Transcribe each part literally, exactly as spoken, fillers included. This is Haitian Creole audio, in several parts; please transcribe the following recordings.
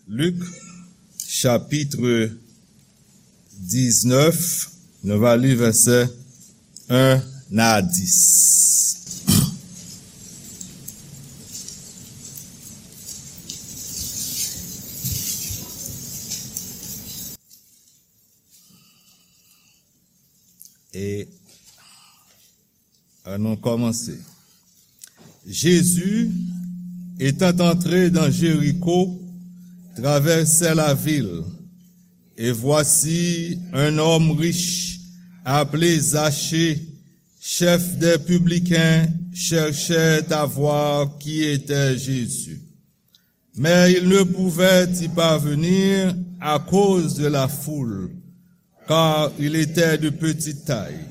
Lik, chapit diznèf, nou va li vèsè en a dis. E Ann nou kòmanse. Jésus, étant entré dans Jéricho, traversait la ville, et voici un homme riche, appelé Zachée, chef des publicains, cherchait à voir qui était Jésus. Mais il ne pouvait y parvenir à cause de la foule, car il était de petite taille.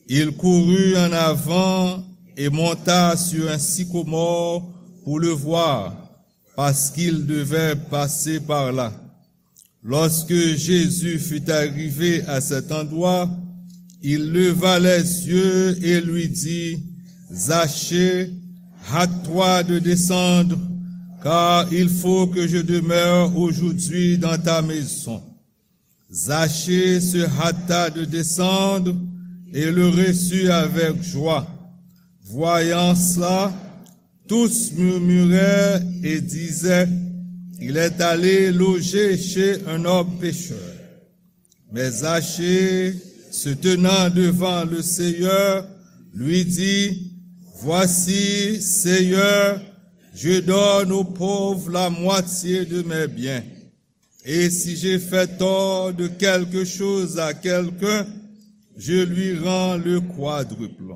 Il courut en avant et monta sur un sycomore pour le voir, parce qu'il devait passer par là. Lorsque Jésus fut arrivé à cet endroit, il leva les yeux et lui dit, Zachée, hâte-toi de descendre, car il faut que je demeure aujourd'hui dans ta maison. Zachée se hâta de descendre et le reçut avec joie. Voyant cela, tous murmuraient et disaient, il est allé loger chez un homme pécheur. Mais Zachée, se tenant devant le Seigneur, lui dit, voici, Seigneur, je donne aux pauvres la moitié de mes biens. Et si j'ai fait tort de quelque chose à quelqu'un, je lui rends le quadruple.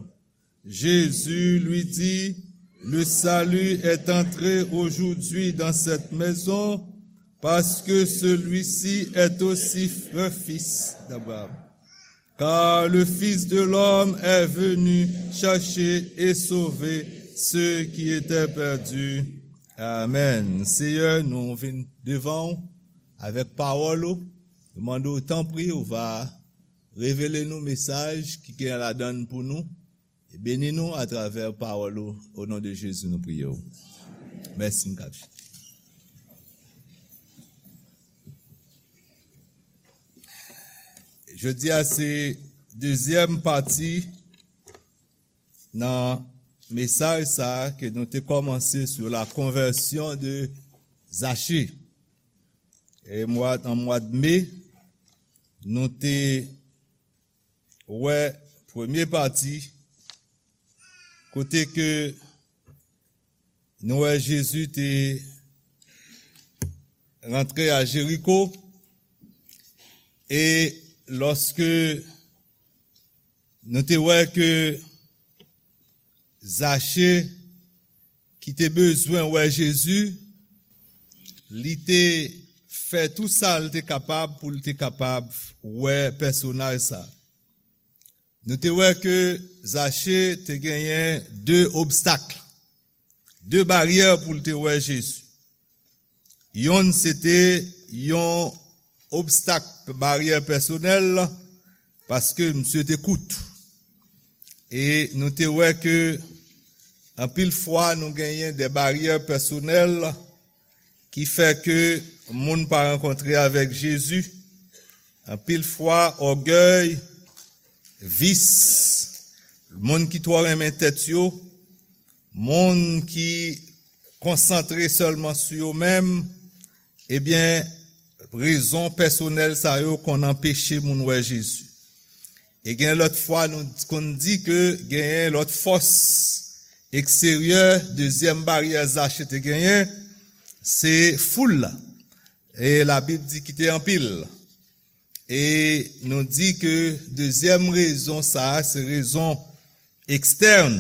Jésus lui dit, le salut est entré aujourd'hui dans cette maison, parce que celui-ci est aussi un fils d'Abraham. Car le Fils de l'homme est venu chercher et sauver ceux qui étaient perdus. Amen. Seyè, nou vin devan w avèk pawòl ou. Nou mande w, tanpri, ou va revele nou mesaj ki gen ladan l pou nou. E beni nou atravè pawòl ou. O non de Jezi, nou priye w. Mèsi, m kap. Jodi a se dezyèm pati nan mesaj sa a ke nou te kòmanse sur la conversion de Zachée. E mwa, an mwa de me, nou te wè premye pati, kote ke nou wè Jezi te rantre a Jeriko, e lòske nou te wè ke Zache, ki te bezwen wè Jezi, li te fè tou sa l te kapab pou l te kapab wè pèsonaj sa. Nou te wè ke Zache te genyen de obstak, de baryè pou l te wè Jezi. Yonn se te yon obstak, baryè pèsonèl, paske misye te kout. E nou te wè ke anpil fwa nou genyen de baryè pèsonèl ki fè ke moun pa rankontre avèk Jezi. Anpil fwa, ògèy, vis, moun ki twò renmen tèt yo, moun ki konsantre sèlman sou yo menm, ebyen, rezon pèsonèl sa yo konn anpeche moun wè Jezi. E gen lòt fwa, nou konn di ke genyen lòt fòs eksteryè, dezyèm baryè Zache te genyen, se foul la. E Labib di ki te anpil. E nou di ke dezyèm rezon sa a, se rezon ekstèn.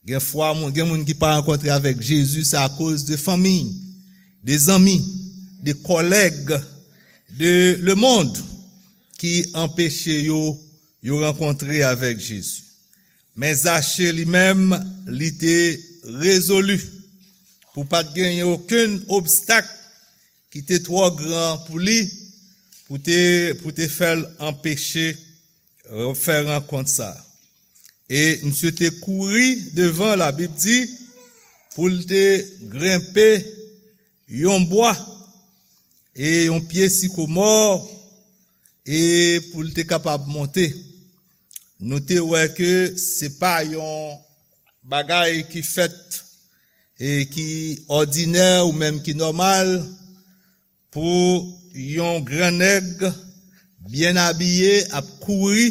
Gen fwa, moun, gen moun ki pa rankontre avèk Jezi, se akoz de fanmi, de zanmi, de kòlèg, de lemonn ki anpeche yo, yo rankontre avèk Jezi. Men Zache li menm, li te rezoli pou pa t genyen okenn obstak ki te twò gran pou li, pou te, pou te fè l anpeche, euh, fè rankont sa. E misye te kouri devan, Labib di, pou l te grenpe yon bwa, e yon pye sikomò, e pou l te kapab monte. Nou te wè ke se pa yon bagay ki fèt e ki òdinè ou menm ki nòmal pou yon gran nèg byen abiye ap kouri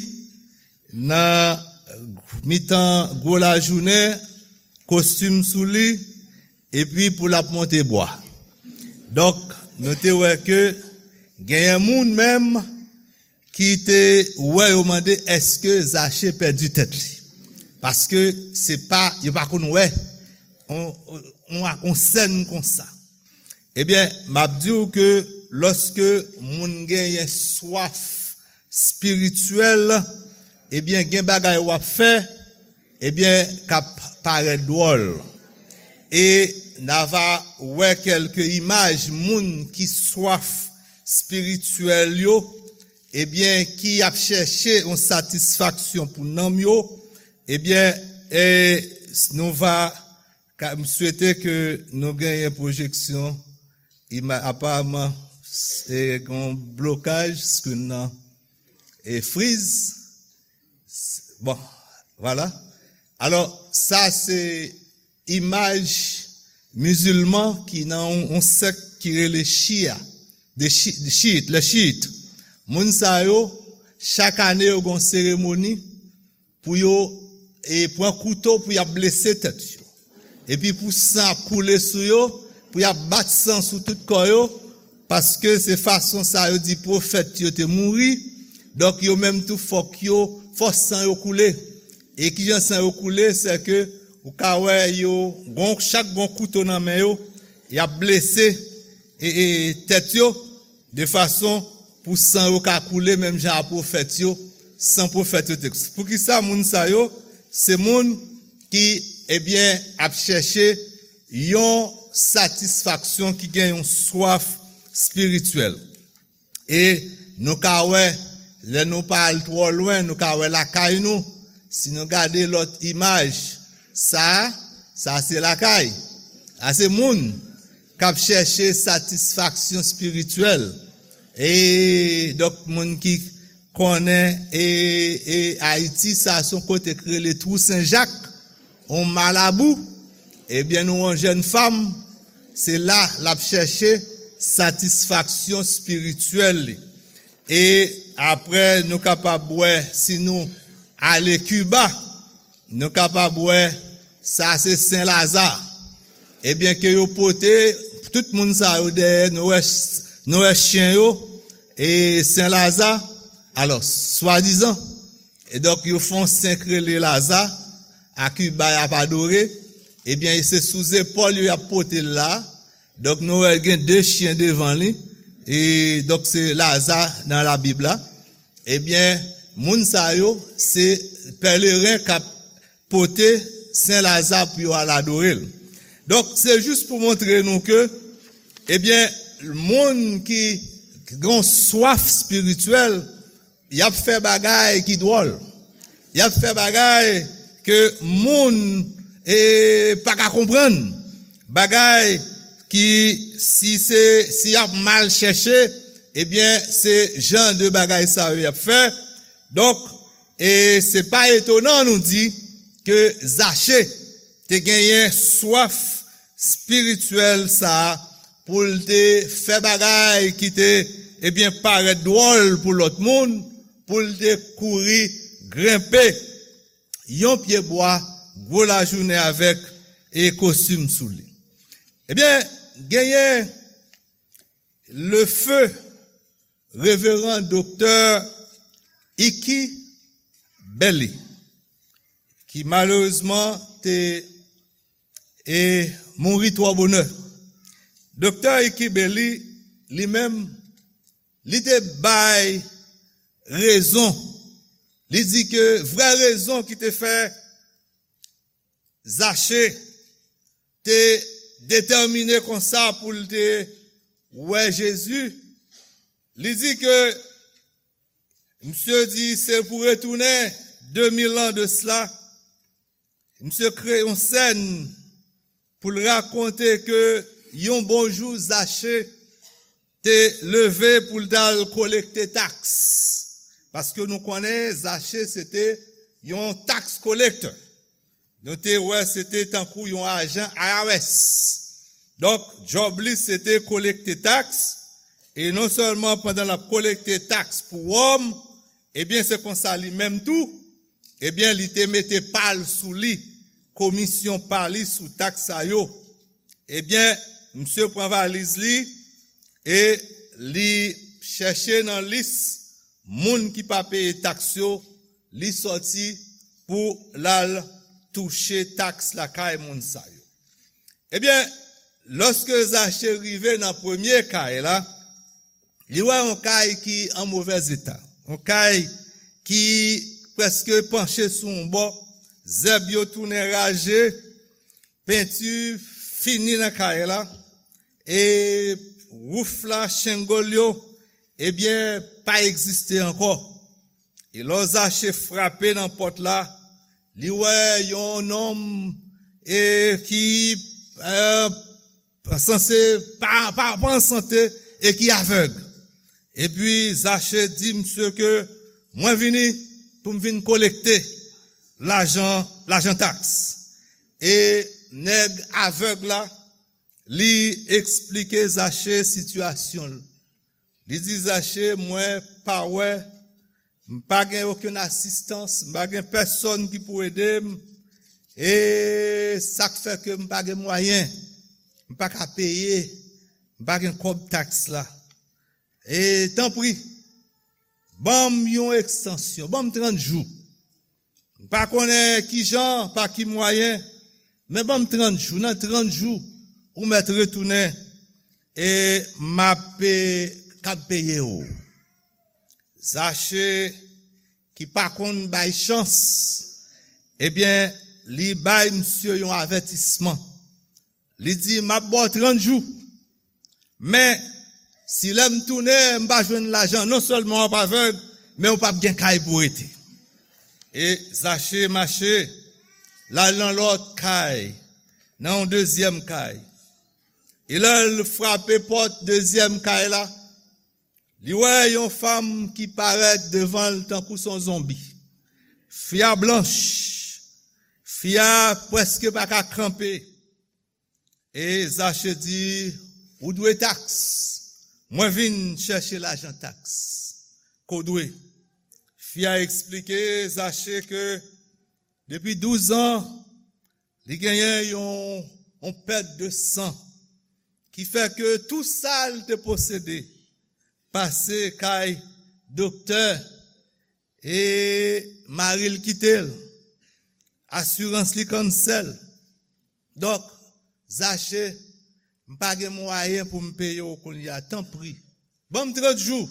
nan mitan gwo lajounen, kostim sou li, epi pou l ap monte bwa. Donk, nou te wè ke genyen moun menm ki te wè yo mande èske Zache pèdi tèt li. Paske se pa, yo pa konn wè on, on, on sèn konsa. Ebyen, m ap di w ke lòske moun genyen swaf espirityèl, ebyen, gen bagay w ap fè, ebyen, k ap parèt dwòl. E n a va wè kèlke imaj moun ki swaf espirityèl yo, ebyen, ki ap chèche yon satisfaksyon pou nanm yo, ebyen, e, nou va, ka, m swete ke nou genyen pwojeksyon, ima, aparaman, e, gen yon blokaj, screen nan, e, friz. Bon, vwala. Alò, sa se imaj mizilman ki nan yon, yon sèk ki rele Chia, de Chi-, de Chiit, le Chiit. Moun sa yo, chak ane yo gen yon seremoni pou yo, e, pran kouto pou y ap blese tèt yo. Epi pou san ap koule sou yo, pou y ap bat san sou tout kò yo, paske se fason sa yo di pwofèt yo te mouri, donk yo menm tou fòk yo, fò san yo koule. E kijan san yo koule, se ke ou ka wè yo, gon, chak gon kouto nan men yo, y ap blese, e, e, tèt yo, de fason pou san yo ka koule menm jan a pwofèt yo, san pwofèt yo te. Poukisa moun sa yo, se moun ki, ebyen, ap chèche yon satisfaksyon, ki gen yon swaf espirityèl. E nou ka wè, lè nou pa al twò lwen, nou ka wè lakay nou. Si nou gade lòt imaj, sa, sa se lakay. Sa se moun k ap chèche satisfaksyon espirityèl. E donk, moun ki konnen, e, e Ayiti, sa se yon kote k rele Twou Sen Jak, yon malabou, ebyen, nou yon jèn fanm, se la l ap chèche satisfaksyon espirityèl li. E apre, nou kapab wè, si nou ale Kiba, nou kapab wè, sa se Sen Laza. Ebyen, ke yo pote tout moun sa yo dèyè, nou wè, nou wè chen yo, e Sen Laza, alò, swadizan, e donk, yo fè yon sen k rele Laza, a Kiba y ap adore, ebyen, se sou zepòl yo y ap pote l la, donk, nou wè gen de chen devan li, e donk, se Laza nan Labib la. Ebyen, moun sa yo, se pèleren k ap pote Sen Laza pou yo al adore l. Donk, se jis pou montre nou ke, ebyen, moun ki gen swaf espirityèl, y ap fè bagay ki dwòl. Y ap fè bagay ke moun, e, pa ka konprann. Bagay ki, si se, si y ap mal chèche, ebyen, se jan de bagay sa yo y ap fè. Donk, e se pa etonan nou di ke Zache te genyen swaf espirityèl sa a pou l te fè bagay ki te, ebyen, parèt dwòl pou lòt moun, pou l te kouri grenpe yon pye bwa gwo lajounen avèk e kostim sou li. Ebyen, genyen le feu Reveran Doktè Iki Belly, ki malerezman te, e, mouri twò bonè. Doktè Iki Belly, li menm, li te bay rezon. Li di ke vrè rezon ki te fè Zache te detèmine konsa pou l te wè Jezi, li di ke, misye di, se pou retounen de mil an de sila, misye kreye yon sèn pou l rakonte ke yon bon jou Zache te leve pou l t al kolekte taks. Paske nou konnen Zache se te yon tax collector. Nou te wè se te tankou yon ajan I R S. Donk, djòb li se te kolekte taks, e non sèlman pandan l ap kolekte taks pou Wòm, ebyen se konsa li menm tou, ebyen li te mete pa l sou li, komisyon pa li sou taks sa yo. Ebyen, misye pran valiz li e li chèche nan lis moun ki pa peye taks yo, li sòti pou l al touche taks lakay moun sa yo. Ebyen, lòske Zache rive nan premye kay la, li wè yon kay ki an movèz eta, yon kay ki prèske panche sou yon bò, zèb yo tounen raje, penti fini nan kay la, e wouf la, shingle yo, ebyen, pa egziste ankò. E lò Zache frape nan pòt la, li wè yon nonm e ki e, sanse pa, pa, pa an sante e ki avèg. Epi Zache di misye ke mwen vini pou m vin kolekte lajan, lajan taks. E nèg avèg la, li eksplike Zache sitiyasyon l. Li di Zache, mwen pa wè, m pa gen okenn asistans, m pa gen pèsonn ki pou ede m. E sa k fè ke m pa gen mwayen, m pa ka peye, m pa gen kòb taks la. E tanpri, ban m yon ekstansyon, ban m trant jou. M pa konnen ki jan, pa ki mwayen, men ban m trant jou. Nan trant jou, ou mèt retounen e m ap pe-, kab peye w. Zache, ki pa konn bay chans, ebyen, li bay misye yon avètisman. Li di, m ap ba w trant jou. Men, si lè m tounen, m pa jwenn lajan, non sèlman w ap avèg, men w p ap gen kay pou w rete. E Zache mache, l al nan lòt kay, nan yon dezyèm kay. E lè l frape pòt dezyèm kay la, li wè yon fanm ki parèt devan l tankou s on zonbi. Fi a blanch, fi a prèske pa ka kanpe. E Zache di, ou dwe taks. Mwen vin chèche lajan taks ke w dwe. Fi a eksplike Zache ke depi douz an, li genyen yon, yon pèt de san ki fè ke tou sa l te posede pase kay doktè e mari l kite l. Asirans li kansèl. Donk, Zache, m pa gen mwayen pou m peye w kounye a. Tanpri, ban m trant jou.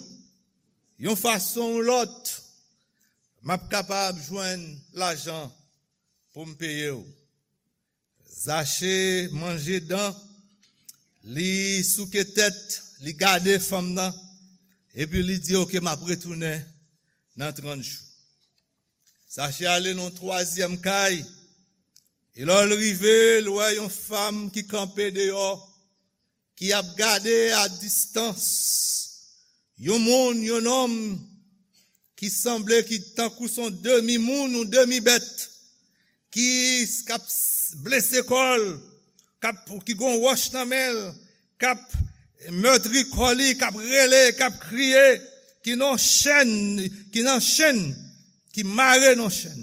Yon fason ou lòt, m ap kapab jwenn lajan pou m peye w. Zache manje dan, li souke tèt, li gade fanm nan, epi li di, oke, m ap retounen nan trant jou. Zache ale nan twazyèm kay, e lè l rive, l wè yon fanm ki kanpe deyò, ki ap gade a distans yon moun, yon nonm ki sanble ki tankou s on demi moun ou demi bèt, ki k ap blese kò l, k ap, ki gon wòch nan men l, k ap mètri kò li, k ap rele, k ap kriye, ki nan chèn, ki nan chèn, ki mare nan chèn,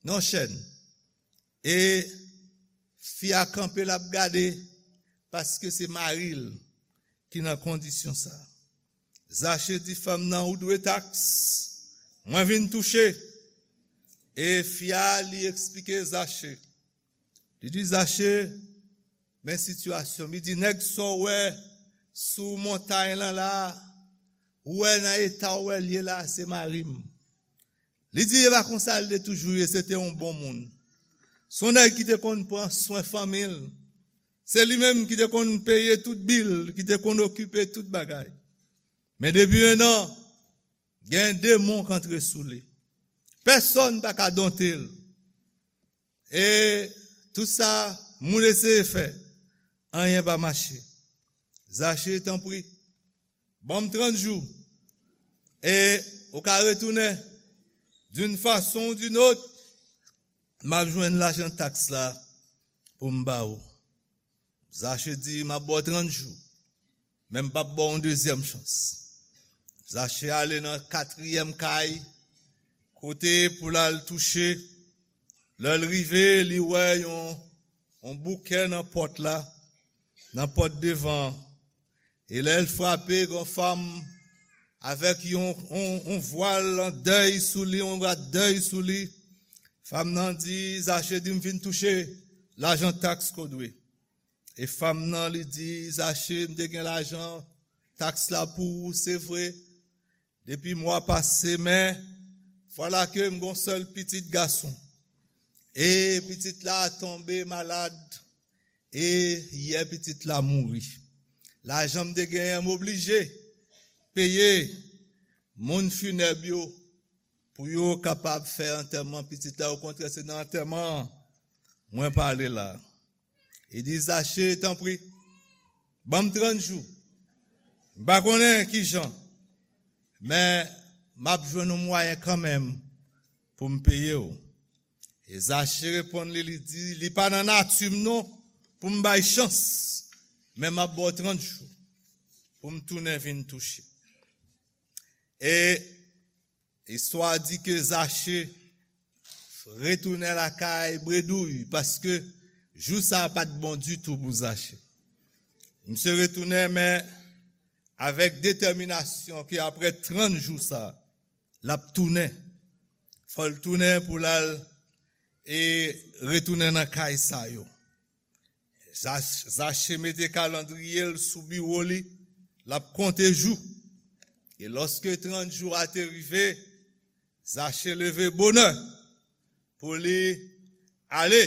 nan chèn. E fi a kanpe, l ap gade, paske se mari l ki nan kondisyon sa. Zache di fanm nan, ou dwe taks, mwen vin touche. E fi a, li eksplike Zache. Li di, Zache, men sitiyasyon m. Li di, nèg sa w wè sou montay lan la, ou wè nan eta w wè l ye la, se mari m. Li di, e pa konsa l te toujou ye, se te yon bon moun. S on nèg ki te konn pran swen fanmi l. Se li menm ki te konn peye tout bil, ki te konn okipe tout bagay. Men depi en an, gen demon k antre sou li. Pèsonn pa ka donte l. E tout sa moun eseye fè, anyen pa mache. Zache, tanpri, Ban m trant jou. E ou ka retounen d'une façon ou d'une autre, m ap jwenn lajan taks la pou m ba ou. Zache di, m ap ba w trant jou, men m p ap ba w yon dezyèm chans. Zache ale nan katriyèm kay, kote pou l al touche. Lè l rive, li wè yon, yon bouke nan pòt la, nan pòt devan an. E lè l frape, gen yon fanm avèk yon, yon, yon vwal an dèy sou li, yon rad dèy sou li. Fanm nan di, Zache di, m vin touche lajan taks ke w dwe. E fanm nan, li di, Zache, m te gen lajan taks la pou ou, se vre, depi mwa pase, men vwala ke m gon sèl pitit gason. E pitit la tonbe malad, e yè pitit la mouri. Lajan m te genyen, m oblije peye moun finèb yo pou yo kapab fè antèman pitit la. Okontrè, se nan antèman an mwen pale la. Li di, Zache, tanpri, ban m trant jou. M pa konnen kijan, men m ap jwenn yon mwayen kanmenm pou m peye w. E Zache reponn li, li di, li pa nan nati m non pou m bay chans, men m ap ba w trant jou pou m tounen vin touche. E istwa di ke Zache retounen lakay bredouy, paske jou sa a pa t bon ditou pou Zache. Misye retounen, men avèk detèminasyon ke apre trant jou sa, l ap tounen. Fò l tounen pou l al e retounen nan kay sa yo. Zach-, Zache mete kalandriye l sou biwo li, l ap konte jou. E lòske trant jou a te rive, Zache leve bonè pou li ale.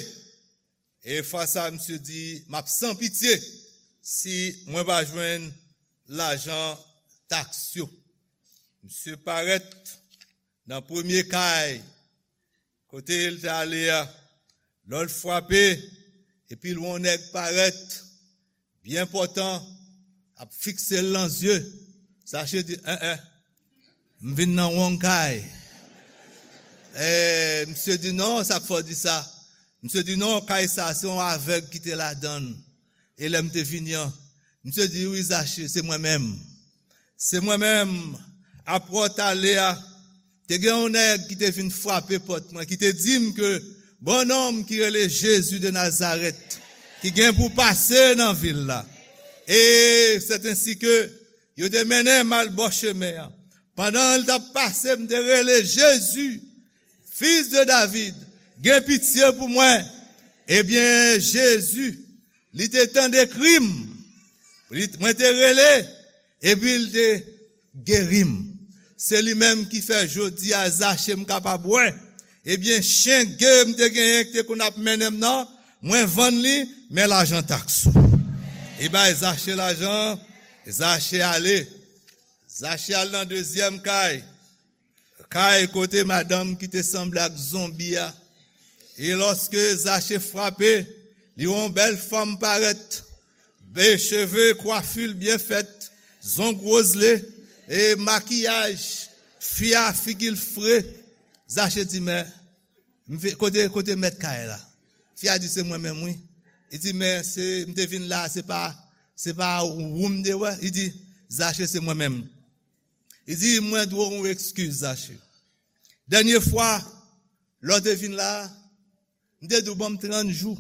E fwa sa, misye di, m ap san pitye si mwen pa jwenn lajan taks yo. Misye parèt nan premye kay kote l te ale a. Lè l frape, epi l wè yon nèg parèt, byen pòtan, ap fikse l nan zye. Zache di, en, en, m vin nan wrong kay. E, misye di, non, sa k fè w di sa? Misye di, non, kay sa, se yon avèg ki te ladan l. E lè m te vini an, misye di, wi, Zache, se mwen menm. Se mwen menm. Apre w t ale a, te gen yon nèg ki te vin frape pòt mwen, ki te di m ke bon nonm ki rele Jezi de Nazarèt, ki gen pou pase nan vil la. E sèt ensi ke yo te mennen m al bò chemen an. Pandan l t ap pase, m te rele, Jezi, fis de David, gen pitye pou mwen. Ebyen, Jezi, li te tande kri m. Li, mwen te rele, epi l te geri m. Se li menm ki fè jodi a Zache m kapab wè. Ebyen, chen ge m te genyen ki te konn ap mennen m nan, mwen vann li, men lajan taks ou. Li bay Zache lajan, Zache ale. Zache al nan dezyèm kay. Kay kote madanm ki te sanble ak zonbi a. E lòske Zache frape, li wè yon bèl fanm parèt. Be cheve, kwafi l byen fèt, zong wozle, e makiyaj, fi a figi l fre. Zache di, men, m ve-, kote, kote mèt kay la? Fi a di, se mwen menm, wi. Li di, men, se, m te vin la, se pa, se pa ou m te wè? Li di, Zache, se mwen menm. Li di, mwen dwe w yon ekskiz, Zache. Dènye fwa, lè w te vin la, m te di w ban m trant jou.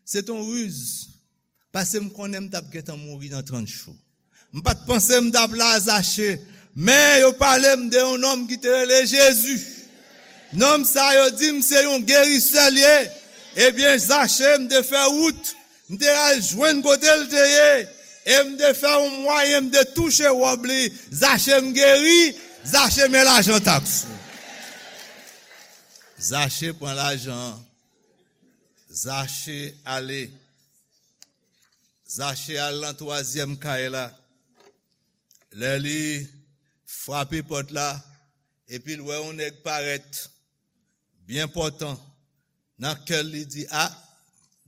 Se t yon riz. Paske m konnen m t ap gentan mouri nan trant jou. M pa t panse m t ap la, Zache. Men yo pale m de yon nonm ki te rele Jezi. Nonm sa yo di m se yon gerisè l ye. Ebyen, Zache, m te fè wout. M te al jwenn kote l te ye. E m te fè yon mwayen, m te touche wòb li. Zache, m geri. Zache, men lajan taks ou. Zache pran lajan an. Zache ale. Zache al nan twazyèm kay la. Lè li frape pòt la, epi l wè yon nèg parèt byen pòtan, nan kè l, li di, a,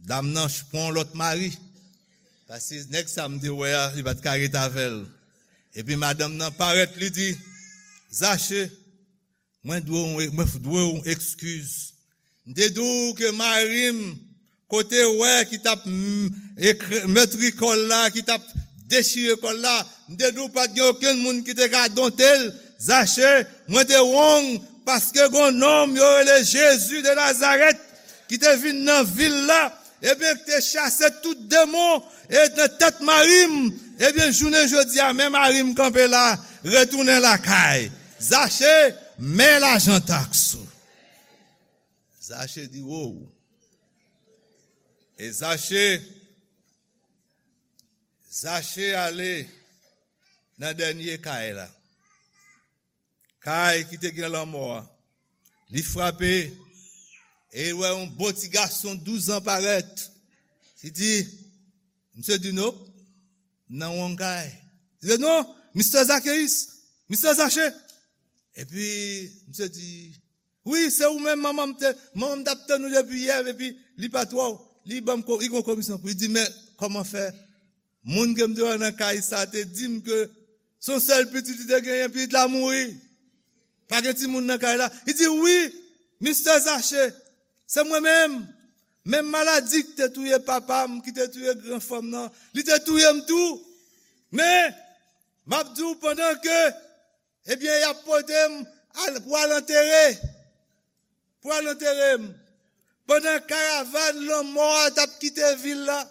dam nan pran yon lòt mari. Paske nèg sa m te wè a, li pa t ka ret avè l. Epi madanm nan parèt, li di, Zache, mwen dwe w, mwen dwe w eskiz. M te di w ke mari m, kote w wè ki t ap m, ekre-, metri kò l la, ki t ap dechire kò l la, m te di w pa t gen okenn moun ki te ka donte l. Zache, mwen te wrong paske gon nonm yo rele Jezi de Nazarèt ki te vin nan vil la, ebyen, ki te chase tout demon e nan tèt mari m, ebyen, jounen jodi a, men mari m kanpe la, retounen lakay. Zache, men lajan taks ou. Zache di, wow. E Zache, Zache ale nan dènye kay la. Kay ki te gen lanmò a. Li frape, e li wè yon bon ti gason douz an parèt. Li di, misye di, "Nope, m nan wrong kay." Li di, "Non, mistè Zakeyis, mistè Zache." Epi, misye di, "Wi, se ou menm, manman m te, manman m t ap tann ou depi yè, epi li pa t wè w. Li ban m ko-, li gon komisyon pou li." Li di, "Men, kòman fè?" Moun ke m te wè nan kay sa te di m ke se yon sèl pitit li te genyen, pitit la mouri. Pa gen timoun nan kay la. Li di, "Wi, mistè Zache, se mwen menm. Menm maladi ki te touye papa m, ki te touye gran frè m nan, li te touye m tou. Men, m ap di w pandan ke, ebyen, y ap pote m al, pou al antere, pou al antere m." Pandan karavàn lanmò a t ap kite vil la,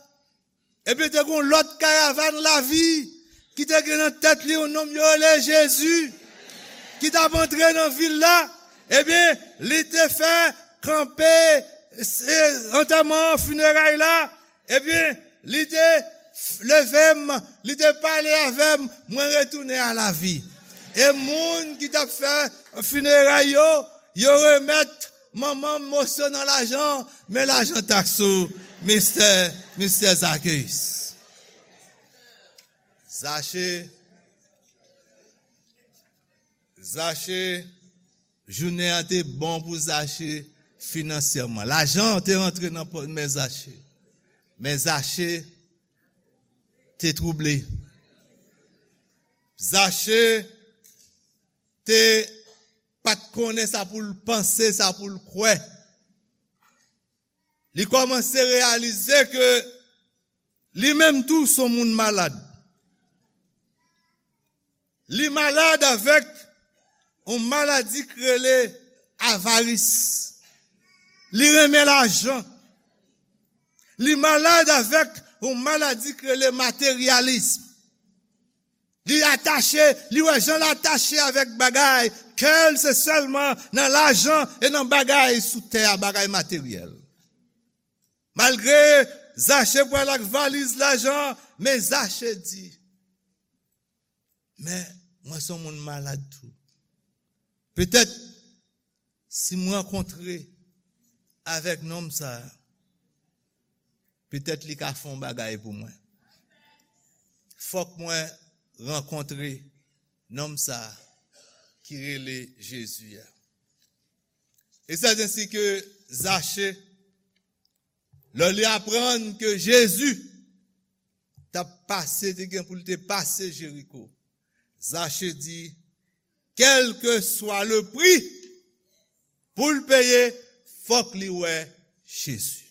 ebyen, te gen yon lòt karavàn lavi ki te gen nan tèt li yon nonm yo rele Jezi, ki t ap antre nan vil la. Ebyen, li te fè kanpe, e, antèman, fineray la. Ebyen, li te f-, leve m, li te pale avè m, mwen retounen a lavi. E moun ki t ap fè fineray yo, yo remèt manman m moso nan lajan, men lajan taks ou, mistè, mistè Zakeyis. Zache, Zache, jounen an te bon pou Zache finansyèman. Lajan an te rantre nan pòch men Zache. Men Zache te twouble. Zache te pa t konnen sa pou l panse, sa pou l kwè. Li kòmanse reyalize ke li menm tou se yon moun malad. Li malad avèk yon maladi ki rele avaris. Li renmen lajan. Li malad avèk yon maladi ki rele materyalism. Li atache, li wè jan l atache avèk bagay, kè l se sèlman nan lajan e nan bagay sou tè a, bagay materyèl. Malgre Zache pral ak valiz lajan, men Zache di, "Men, mwen se yon moun malad tou. Petèt, si m rankontre avèk nonm sa a, petèt li ka fè yon bagay pou mwen. Fòk mwen rankontre nonm sa a ki rele Jezi a." E sèt ensi ke Zache, lè li aprann ke Jezi t ap pase, te gen pou l te pase Jeriko, Zache di, kèlkeswa le pri pou l peye, fòk li wè Jezi.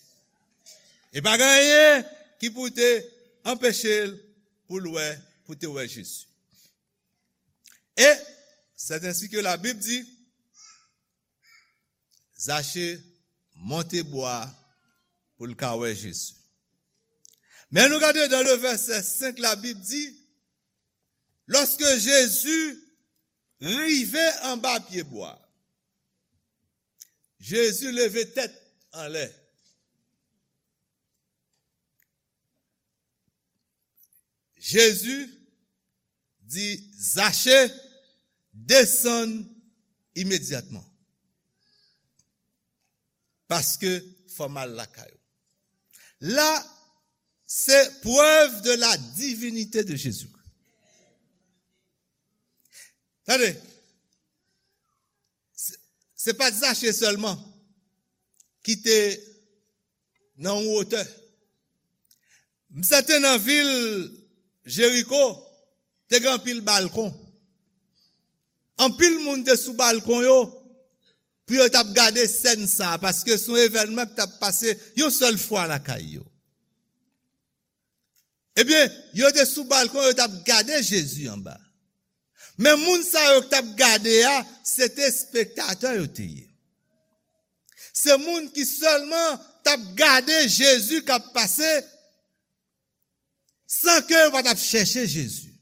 E pa gen anyen ki pou te anpeche l pou l wè, pou te wè Jezi. E sèt ensi ke Labib di, Zache monte bwa pou l ka wè Jezi. Men nou gade dan le vèsè senk, Labib di, lòske Jezi rive anba pye bwa, Jezi leve tèt anlè. Jezi di Zache, desann imedyatman. Paske fò m al lakay ou. La, se preuve de la divinité de Jésus. Tande, se, se pa t Zache sèlman ki te nan yon wotè. M sèten nan vil Jeriko, te gen anpil balkon. Anpil moun te sou balkon yo pou yo t ap gade sèn sa a, paske se yon evènman ki t ap pase yon sèl fwa lakay yo. Ebyen, yo te sou balkon, yo t ap gade Jezi anba. Men moun sa yo ki t ap gade a, se te espektatè yo te ye. Se moun ki sèlman t ap gade Jezi k ap pase, san ke yo pa t ap chèche Jezi.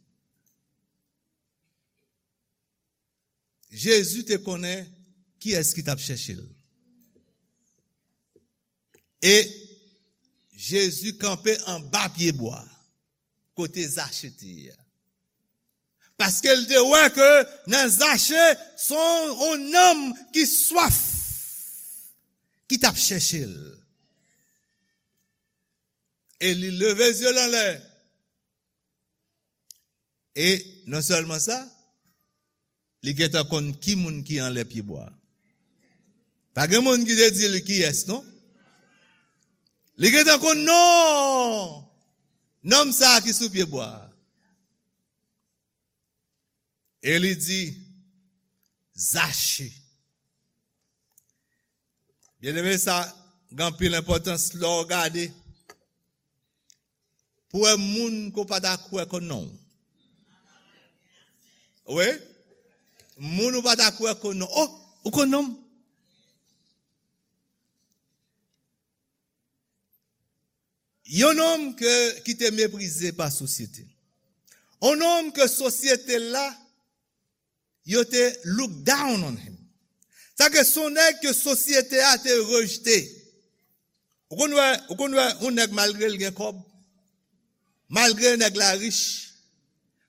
Jezi te konnen kiyès ki t ap chèche l. E Jezi kanpe anba pyebwa, kote Zache te ye a. Paske l te wè ke nan Zache, se yon, yon nonm ki swaf, ki t ap chèche l. E li leve zye l anlè. E non sèlman sa, li gentan konn ki moun ki anlè pyebwa a. Pa gen moun ki te di li kiyès, non. Li gentan konn non nonm sa a ki sou pyebwa a. E li di, Zache. Byeneme, sa gen anpil enpòtans lè w gade pou wè moun ke w pa ta kwè konn non w. Wi. Moun ou pa ta kwè konn non w. Oh, ou konn non m? Yon nonm ke, ki te meprize pa sosyete. Yon nonm ke sosyete la, yo te look down on him. Sa ke se yon nèg ke sosyete a te rejte. Ou konn wè, ou konn wè yon nèg malgre l gen kòb, malgre nèg la rich,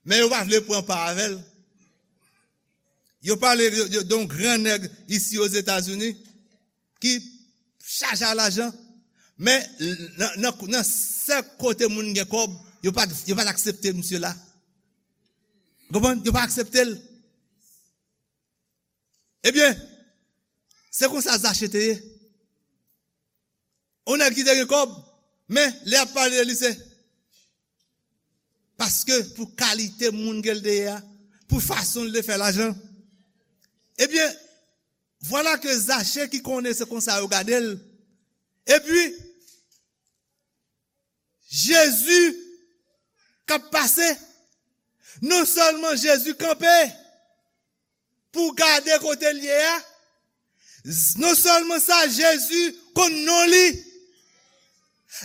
men yo pa vle pran pa avè l. Yo pale de, de, de yon gran nèg isi Ozetazini ki chaje a lajan, men nan, nan, nan sèk kote moun gen kòb, yo pa, yo pa t aksepte misye la. Konprann? Yo pa aksepte l. Ebyen, se konsa Zache te ye. Yon nèg ki te gen kòb, men lè y ap pale de li, se paske pou kalite moun ke l te ye a, pou fason l te fè lajan. Ebyen, vwala ke Zache ki konnen se konsa yo gade l. Epi, Jezi k ap pase. Non sèlman Jezi kanpe pou gade kote l ye a, z-, non sèlman sa, Jezi konn non li.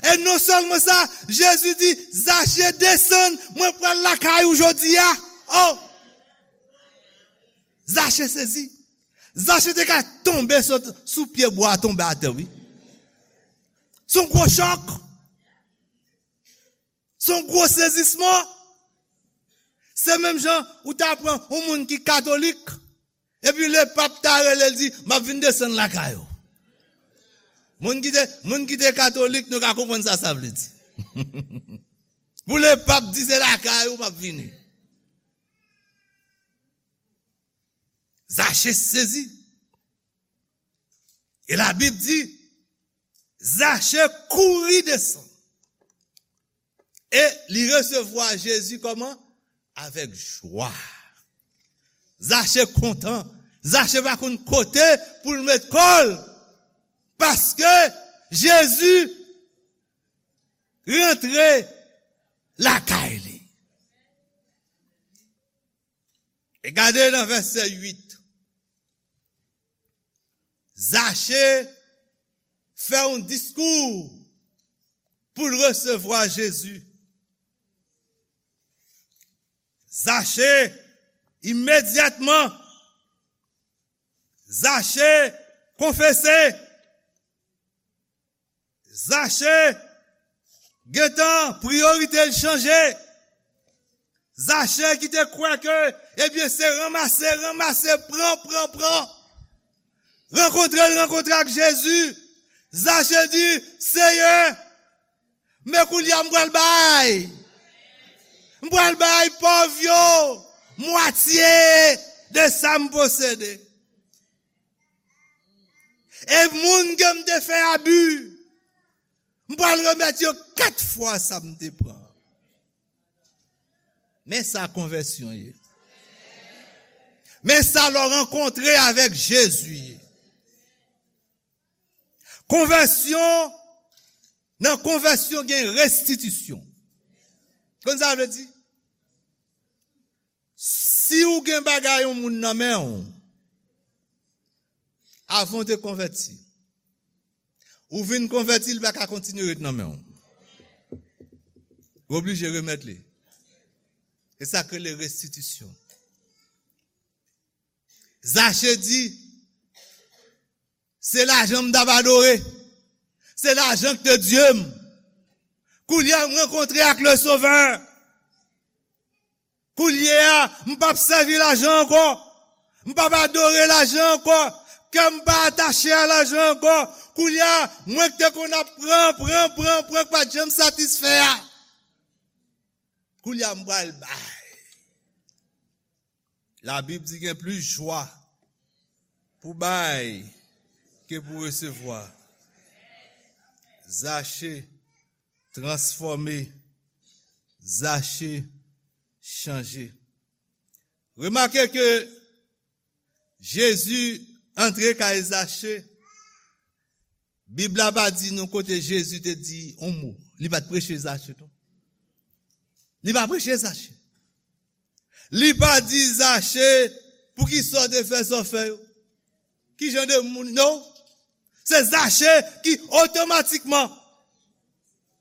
E non sèlman sa, Jezi di, Zache, desann, mwen pral lakay ou jodi a. Oh! Zache sezi. Zache te ka tonbe sot sou pye bwa, tonbe atè, wi. Se yon gwo chòk. Se yon gwo sezisman. Se menm jan ou ta pran yon moun ki katolik, epi lepap ta rele l di, "M ap vin desann lakay ou." Moun ki te, moun ki te katolik, nou ka konprann sa sa vle di. Pou lepap di, "Se lakay ou m ap vini." Zache sezi. E Labib di, Zache kouri desann. E li resevwa Jezi kòman? Avèk jwa. Zache kontan. Zache pa konn kote pou l met kò l. Paske Jezi rantre lakay li. E gade nan vèsè uit. Zache fè yon diskou pou l resevwa Jezi. Zache, imedyatman, Zache konfese. Zache gentan priyorite l chanje. Zache ki te kwè ke, ebyen, se ranmase, ranmase, pran, pran, pran. Rankontre l rankontre ak Jezi. Zache di, Seyè, men koulye a m pral bay. M pral bay pòv yo mwatye de sa m posede. E moun ke m te fè abi, m pral remèt yo kat fwa sa m te pran. Men sa konvèsyon ye. Men sa lè w rankontre avèk Jezi ye. Konvèsyon, nan konvèsyon gen restitisyon. Konn sa vle di? Si w gen bagay yon moun nan men w, avan w te konvèti, ou vin konvèti, li pa ka kontinye ret nan men w. Ou oblije remèt li. E sa k rele restitisyon. Zache di, se lajan m t ap adore. Se lajan k te Dye m. Koulye a, m rankontre ak le Sovè. Koulye a, m p ap sèvi lajan ankò. M p ap adore lajan ankò. Kè m pa atache a lajan ankò. Koulye a, mwen k te konn ap pran, pran, pran, pran, k pa t janm satisfè a. Koulye a, m pral bay. Labib di gen plis jwa pou bay ke pou resevwa. Zache transfòme, Zache chanje. Remake ke Jezi antre kay Zache, Bib la pa di nou kote Jezi te di yon mo. Li pa t preche Zache tou. Li pa preche Zache. Li pa di Zache, poukisa w te fè sa w fè yo? Ki jan de moun, non? Se Zache ki otomatikman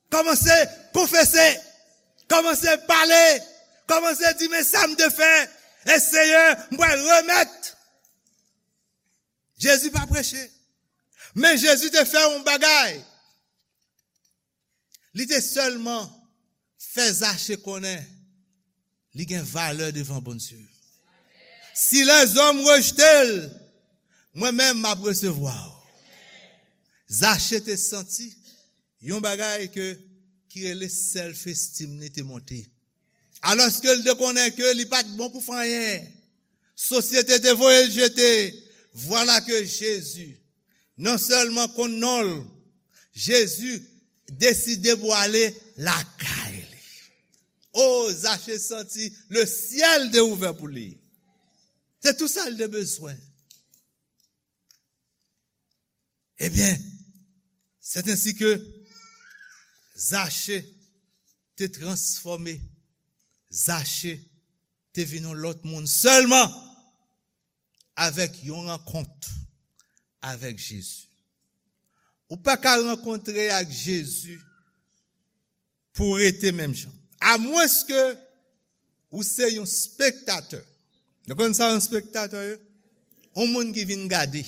kòmanse konfese, kòmanse pale, kòmanse di, men sa m te fè, e Seyè, m pral remèt. Jezi pa preche. Men Jezi te fè yon bagay. Li te sèlman fè Zache konnen li gen valè devan Bondye. Si lèzòm rejte l, mwen menm m ap resevwa w. Zache te santi yon bagay ke, ki rele self esteem li te monte. Alòske l te konnen ke li pa t bon pou fè anyen. Sosyete te voye l jete. Vwala ke Jezi non sèlman konn non l, Jezi deside pou ale lakay li. O, Zache santi le syèl te ouvè pou li. Se tou sa l te bezwen. Ebyen, c'est ainsi que Zache te transfòme. Zache te vin yon lòt moun sèlman avèk yon rankont avèk Jezi. Ou pa ka rankontre ak Jezi pou w rete menm jan. Amwenske ou se yon spektatè. Nou konn sa yon spektatè ye? Yon moun ki vin gade.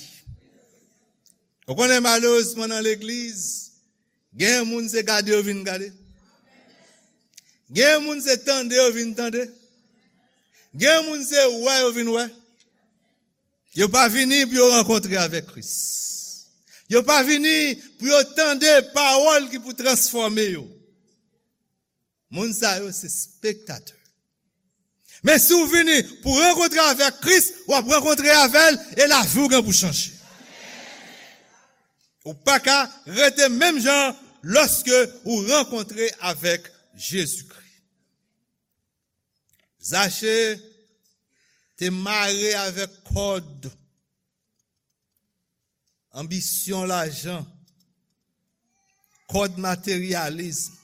Ou konnen malerezman nan legliz, gen moun se gade yo vin gade. Gen moun se tande yo vin tande. Gen moun se wè yo vin wè. Yo pa vini pou yo rankontre avèk Kris. Yo pa vini pou yo tande pawòl ki pou transfòme yo. Moun sa yo se spektatè. Men si w vini pou rankontre avèk Kris, w ap rankontre avè l e lavi w gen pou chanje. Ou pa ka rete menm jan lòske ou rankontre avèk Jezikri. Zache te mare avèk kòd anbisyon lajan, kòd materyalism.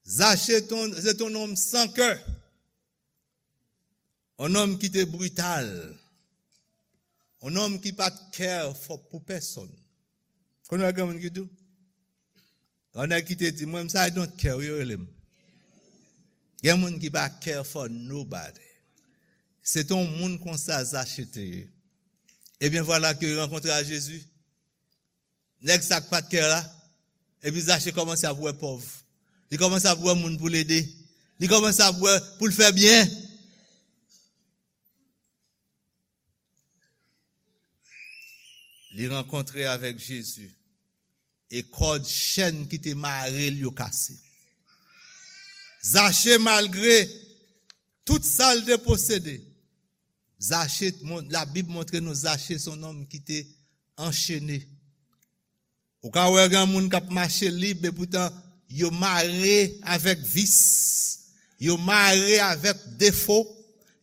Zache te yon, se te yon nonm san kè, yon nonm ki te brital, yon nonm ki pa t care for, pou pèsonn. Konnen gen moun ki di w, yon nèg ki te di, mwen, m sa I don't care, yo rele m. Gen moun ki pa care for nobody. Se te yon moun konsa Zache te ye. Ebyen, vwala ke li rankontre a Jezi. Nèg sa k pa t care la. Epi Zache kòmanse ap wè pòv. Li kòmanse ap wè moun pou l ede. Li kòmanse ap wè pou l fè byen. Li rankontre avèk Jezi. E kòd chèn ki te mare l yo kase. Zache, malgre tout sa l te posede, Zache, mon-, Labib montre nou Zache se yon nonm ki te anchene. Ou ka wè gen moun k ap mache lib, epoutan yo mare avèk vis, Yo mare avèk defo,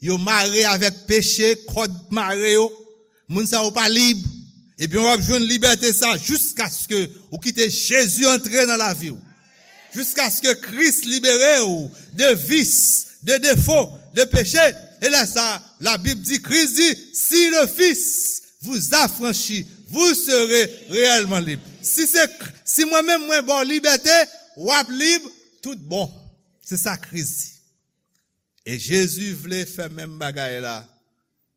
yo mare avèk peche, kòd mare yo. Moun sa yo pa lib. Ebyen, w ap jwenn libète sa jiskaske ou kite Jezi antre nan lavi w. Jiskaske Kris libere w de vis, de defo, de peche. E lè sa, Labib di, Kris di, si le Fils vous affranchit, vous serez réellement libre. Si se, si mwen menm mwen ba w libète, w ap lib tout bon. Se sa Kris di. E Jezi vle fè menm bagay la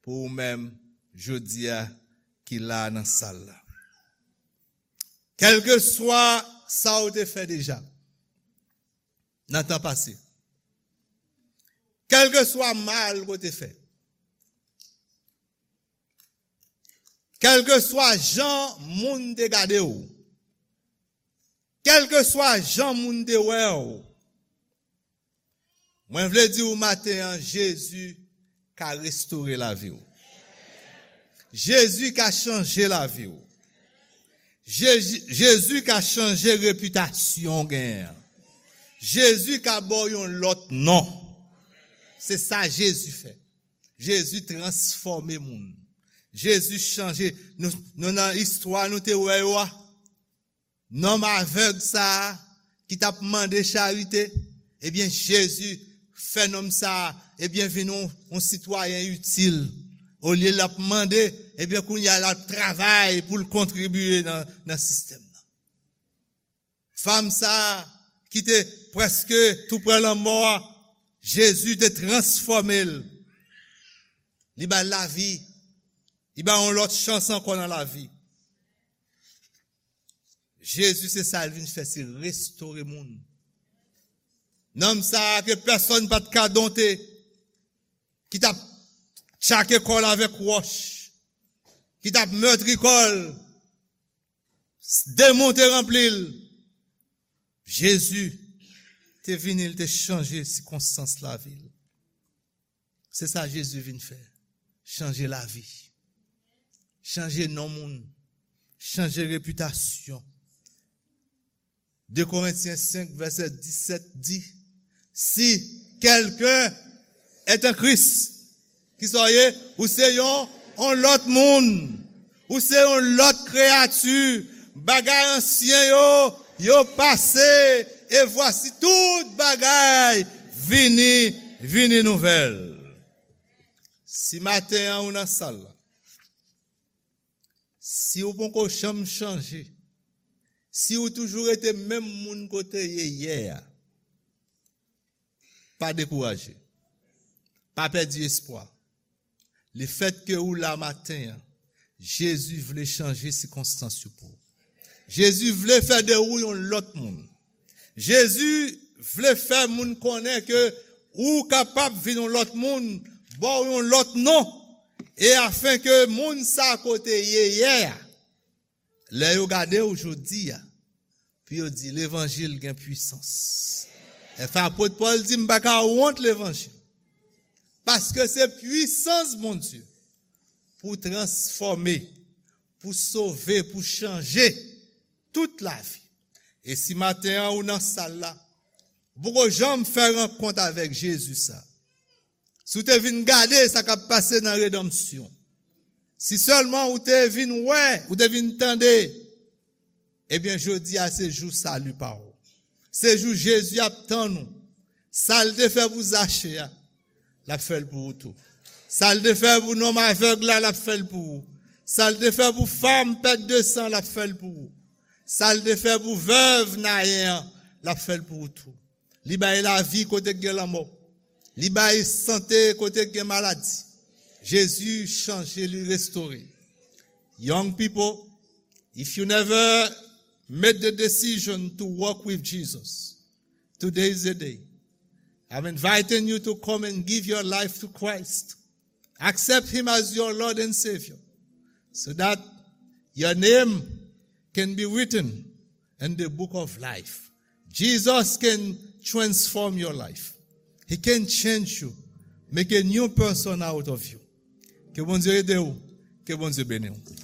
pou ou menm jodi a ki la nan sal la. Kèlkeswa sa ou te fè deja nan tan pase, kèlkeswa mal ou te fè, kèlkeswa jan moun te gade w, kèlkeswa jan moun te wè w, mwen vle di w maten an, Jezi ka restore lavi w. Jezi ka chanje lavi w. Jezi, Jezi ka chanje repitasyon w genyen an. Jezi ka ba w yon lòt non. Se sa Jezi fè. Jezi transfòme moun. Jezi chanje. Nou, nou nan istwa nou te wè yo a. Nonm avèg sa a ki t ap mande charite, ebyen, Jezi fè nonm sa a, ebyen, vin yon, yon sitwayen itil. Olye l ap mande, ebyen, kounye a l ap travay pou l kontribye nan, nan sistèm nan. Fanm sa a ki te prèske tou pre lanmò a, Jezi te transfòme l. Li ba l lavi. Li ba l yon lòt chans ankò nan lavi. Jezi, se sa l vin fè, se restore moun. Nonm sa a ke pèsonn pa t ka donte, ki t ap tchake kò l avèk wòch, ki t ap mètri kò l, demon te ranpli l. Jezi te vini, l te chanje sikonstans lavi l. Se sa Jezi vin fè. Chanje lavi. Chanje non moun. Chanje repitasyon. De Korentyen senk, vèsè disèt di, si quelqu'un est en Christ, ki sa w ye? Ou se yon, yon lòt moun. Ou se yon lòt kreyati. Bagay ansyen yo, yo pase. E vwasi tout bagay vini, vini nouvèl. Si maten an ou nan sal la, si ou poko janm chanje, si ou toujou rete menm moun kote ye yè a, pa dekouraje. Pa pèdi espwa. Lefètke ou la maten an, Jezi vle chanje sikonstans yo pou ou. Jezi vle fè de ou yon lòt moun. Jezi vle fè moun konnen ke ou kapab vin yon lòt moun, ba w yon lòt non, e afenke moun sa kote ye yè a, lè yo gade w jodi a, pou yo di levanjil gen pwisans. Enfen, apot Pòl di, m pa ka wont levanjil. Paske se pwisans Bondye pou transfòme, pou sove, pou chanje tout lavi. E si maten an ou nan sal la, ou poko janm fè rankont avèk Jezi sa. Si w te vin gade sa k ap pase nan redanmsyon, si sèlman ou te vin wè, ou te vin tande, ebyen, jodi a se jou sali pa w. Se jou Jezi ap tann ou. Sa l te fè pou Zache a, l ap fè l pou ou tou. Sa l te fè pou nonm avèg la, l ap fè l pou ou. Sa l te fè pou fanm pèt de san, l ap fè l pou ou. Sa l te fè pou vèv Nayen an, l ap fè l pou ou tou. Li bay lavi kote k gen lanmò. Li bay sante kote k gen maladi. Jezi chanje, li restore. Young people, if you never made the decision to walk with Jesus, today is the day. I'm inviting you to come and give your life to Christ. Accept him as your Lord and Savior so that your name can be written in the book of life. Jesus can transform your life. He can change you, make a new person out of you. Ke Bondye ede w, ke Bondye beni w.